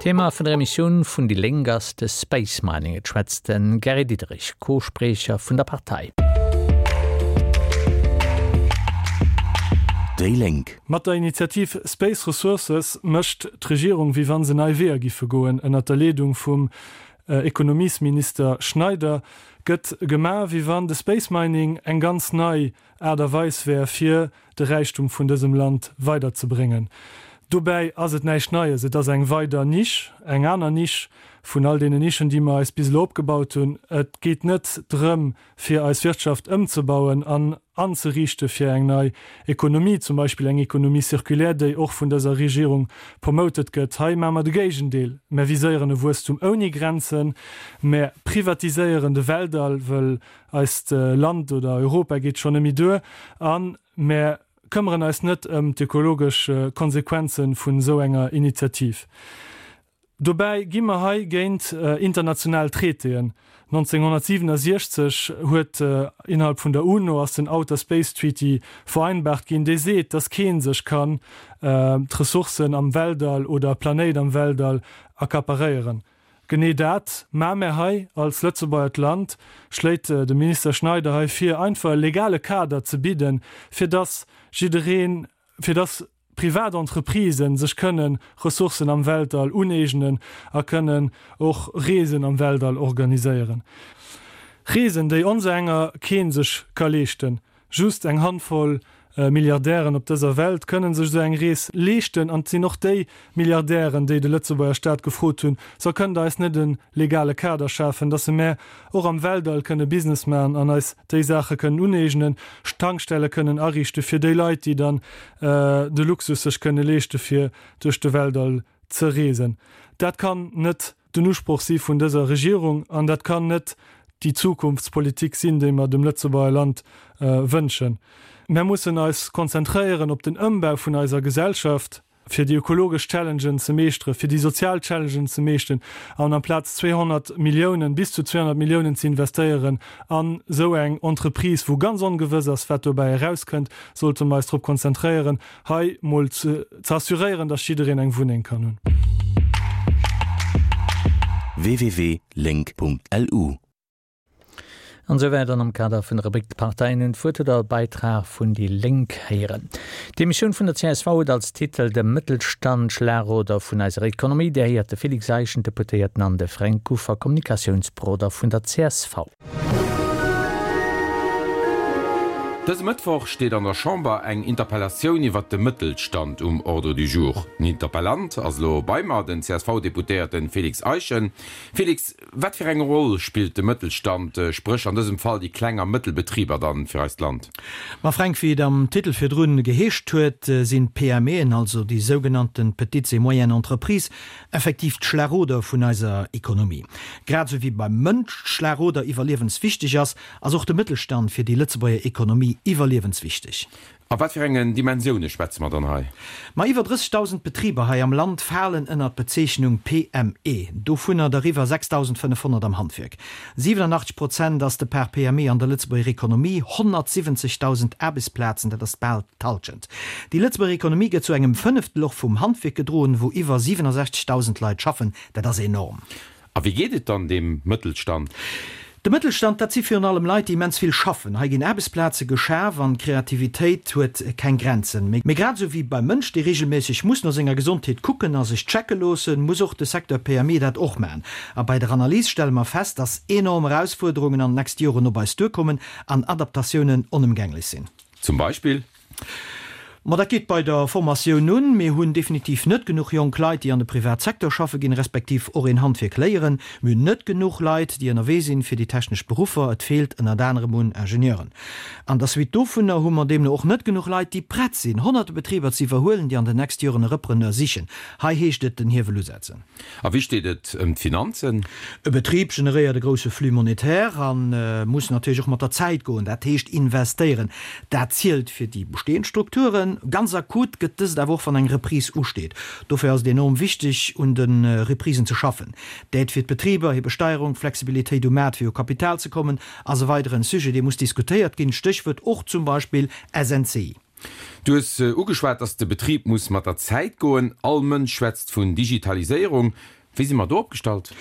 Thema vun der Emissioun vun déi Lénk ass de Space Mining. Et schwätzt de Gary Diderich, Co-Spriecher vun der Partei. Déi Lénk. Mat der Initiativ Space Ressources mécht d'Regierung wéi wann se nei Weeër giffe goen. Ënnert der Leedung vum Ekonomiesminister Schneider gëtt gemaach wéi wann de Space Mining eng ganz nei Aart a Weis wär fir de Räichtum vun dësem Land weiderzebréngen. Dobäi ass et näischt Neies, et ass eng weider Nisch, eng aner Nisch vun all deenen Nischen, déi mer eis bis elo opgebaut hunn. Et geet net drëm, fir eis Wirtschaft ëmzebauen an anzeriichte fir eng nei Ekonomie, zum Beispill eng Économie circulaire, déi och vun dëser Regierung promoted gëtt. Hei maache mer de Géigendeel, Mer viséieren e Wuesstum ouni Grenzen, mer privatiséieren de Weltall, wëll Eist Land oder Europa geet schonn nëmme duer a mär këmmeren eis net ëm d'ökologesch Konsequenze vun esou enger Initiativ. Dobäi gi mer hei géint international Traitéen. 1967 huet innerhalb vun der UNO ass den Outer Space Treaty vereinbart ginn, dee seet, dass kee sech kann d'Ressourcen am Weltall oder e Planéit am Weltall accaparéieren. Genee dat maa mär hei als Lëtzebuergert Land, schléit de Minister Schneider hei vir, einfach e legale Kader ze bidden, fir dass jiddereen, fir dass privat Entreprisen sech kënnen Ressourcen am Weltall uneegnen a kënnen och Reesen am Weltall organiséieren. Reesen, déi onserenger kee sech ka leeschten. Just eng Handvoll Milliardären op dëser Welt kënnen sech esou eng Rees leeschten. An et sinn och déi Milliardären, déi de Lëtzebuerger Staat gefrot hunn, So kënnt Der eis net e legale Kader schafen, dass se mär och am Weltall kënne Business maachen an eis déi Saache kënnen uneegnen, Tankstelle kënnen ariichte fir déi Leit, déi dann de Luxus sech kënne leeschte fir duerch de Weltall ze reesen. Dat kann net den Usproch si vun dëser Regierung an dat kann net déi Zukunftspolitik sinn, déi mer dem Lëtzebuerger Land wënschen. Mer mussen eis konzentréieren op den Ëmbau vun eiser Gesellschaft, fir déi ökologesch Challengen ze meeschteren, fir déi sozial Challengen ze meeschten an amplaz 200 Milliounen, bis zu 200 Milliounen ze investéieren an esou eng Entreprise, wou ganz ongewëss ass, wat dobäi erauskënnt, sollte mer eis drop konzentréieren, hei mol ze assuréieren, dass jiddereen eng Wunneng kann hunn. www.link.lu. An esou wäit an am Kader vun der Rubrik D'Parteien hunn d'Wuert huet der e Beitrag vun déi Lénk héieren. D'Emissioun vun der csv huet als Titel De Mëttelstand, Schlagroder vun eiser Ekonomie. Dir héiert de Félix Eischen, Deputéierten an de Fränk Kuffer, Kommunikatiounsberoder vun der csv. Dëse Mëttwoch steet an der Chamber eng Interpellatioun iwwert de Mëttelstand um Ordre du jour. Den Interpellant ass elo bei mer, den CSV-Deputéierten Félix Eischen. Félix, wat fir eng Roll spillt de Mëttelstand, spréch an dësem Fall déi kleng a mëttel Betriber dann fir eist Land? Ma Fränk, wéi et am Titel virdrun geheescht huet, sinn d'PMEen, also déi sougenannten Petites et Moyennes Entreprises, Effektiv d'Schlagoder vun eiser Ekonomie. Grad esou wéi beim Mënsch d'Schlagoder iwwerliewenswichteg ass, ass och de Mëttelstand fir déi Lëtzebuerger Ekonomie iwwerliewenswichteg. A wat fir engen Dimensioune schwätze mer dann hei? Ma iwwer 30.000 Betriber hei am Land falen ënnert d'Bezeechnung PME, dovunner der iwwer 6.500 am Handwierk. 87 Prozent ass de Part PME an der Lëtzebuerger Ekonomie, 170.000 Aarbechtsplazen, dat ass bal d'Hallschent. Déi Lëtzebuerger Ekonomie gëtt zu engem Fënneftel och vum Handwierk gedroen, wou iwwer 67.000 Leit schaffen. Dat ass enorm. A wéi geet et dann deem Mëttelstand? De Mëttelstand, dat si virun allem Leit, déi immens vill schaffen. Hei ginn Aarbechtsplaze geschaf an d'Kreativitéit huet keng Grenzen. Mee grad esou wéi beim Mënsch, dee reegelméisseg muss no senger Gesondheet kucken a sech checke loossen, muss och de Secteur PME dat och maachen. A bei der Analys stelle mer fest, dass enorm Erausfuerderungen an den nächste Joren op eis duerkommen an Adaptatiounen onëmgänglech sinn. Zum Beispill? Ma dat geet bei der Formatioun un. Mir hunn definitiv net genuch jonk Leit, déi an de Privatsecteur schaffe ginn, respektiv och een Handwierk léieren. Mir hunn net genuch Leit, déi ënnerwee sinn fir déi technesch Beruffer. Et feelt ënnert anerem un Ingenieuren. An der Suite dovunner hu mer deemno och net genuch Leit, déi prett sinn, honnerte Betriber ze iwwerhuelen, déi an den nächste Joren e Repreneur sichen. Hei heescht et den Hiewel usetzen. A wéi steet et ëm d'Finanzen? E Betrib generéiert e grousse Flux monétaire a muss natierlech och mat der Zäit goen, dat heescht investéieren. Dat zielt fir déi bestehend Strukturen. Ganz akut gëtt dëst awer och, wann eng Reprise usteet. Dofir ass et enorm wichteg, un de Reprisen ze schaffen. D'Aide fir d'Betriber, hir Besteierung, d'Flexibilitéit um Maart fir u Kapital ze kommen, ass e weideren Sujet, dee muss diskutéiert ginn, Stéchwuert och zum Beispill SNCI. Du hues ugeschwat, dass de Betrib muss mat der Zäit goen. All Mënsch schwätzt vun Digitaliséierung. Wéi si mer do opgestallt?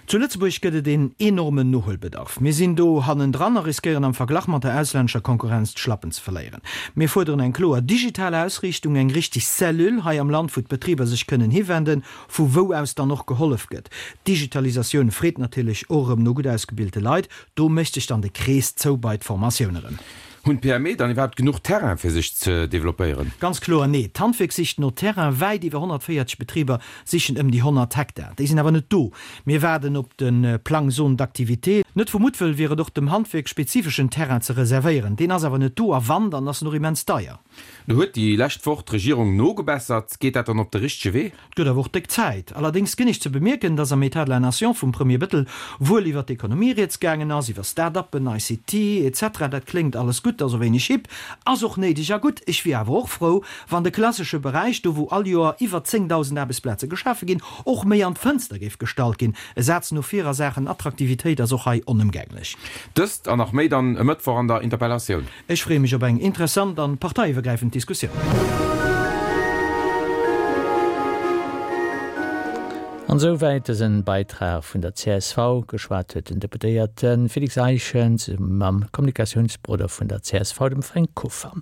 Zu Lëtzebuerg gëtt et een enormen Nohuelbedarf. Mir sinn do hannendran a riskéieren am Verglach mat der auslännescher Konkurrenz d'Schlappen ze verléieren. Mir fuerderen eng kloer digital Ausriichtung, eng richteg Cellule hei am Land, wou d'Betriber sech kënnen hiwenden, vu wou aus dann och gehollef gëtt. D'Digitalisatioun freet natierlech och erëm no gutt ausgebilte Leit. Do mécht sech dann de Krees zou bei d'Formatioun erëm. Hunn d'PME dann iwwerhaapt genuch Terrain fir sech ze developpéieren? Ganz kloer nee. D'Handwierk sicht no Terrain. Wäit iwwer 140 Betriber sichen ëm déi 100 Hektar. Déi sinn awer net do. Mir waarden op de Plang Zone d'activité. Net vu Muttwëll wier et och dem Handwierk spezifeschen Terrain ze reservéieren. Deen ass awer net do a wann, dann ass en och immens deier. Lo huet déi lescht Woch d'Regierung nogebessert. Geet dat dann op de richtege Wee? Et gëtt awer och déck Zäit. Allerdéngs ginn ech ze bemierken, dass am État de la Nation vum Premier Bettel wuel iwwer d'Ekonomie rieds gaangen ass, iwwer Start-uppen, ICT, etc. Dat kléngt alles gutt, ass och wéineg hip, ass och néideg a gutt. Ech wier awer och frou, wann de klassesche Beräich, do wou all Joer iwwer 10.000 Aarbechtsplaze geschafe ginn, och méi an d'Fënster géif gestallt ginn. E Saz no vir a Saachen Attraktivitéit ass och hei onëmgänglech. Dëst an nach méi dann e Mëttwoch an der Interpellatioun. Ech freeë mech op eng interessant an parteiiwwergräifend Diskussioun. An esou wäit dësen Beitrag vun der csv. Geschwat huet den Deputéierte Félix Eischen zesumme mam Kommunikatiounsberoder vun der csv, dem Fränk Kuffer.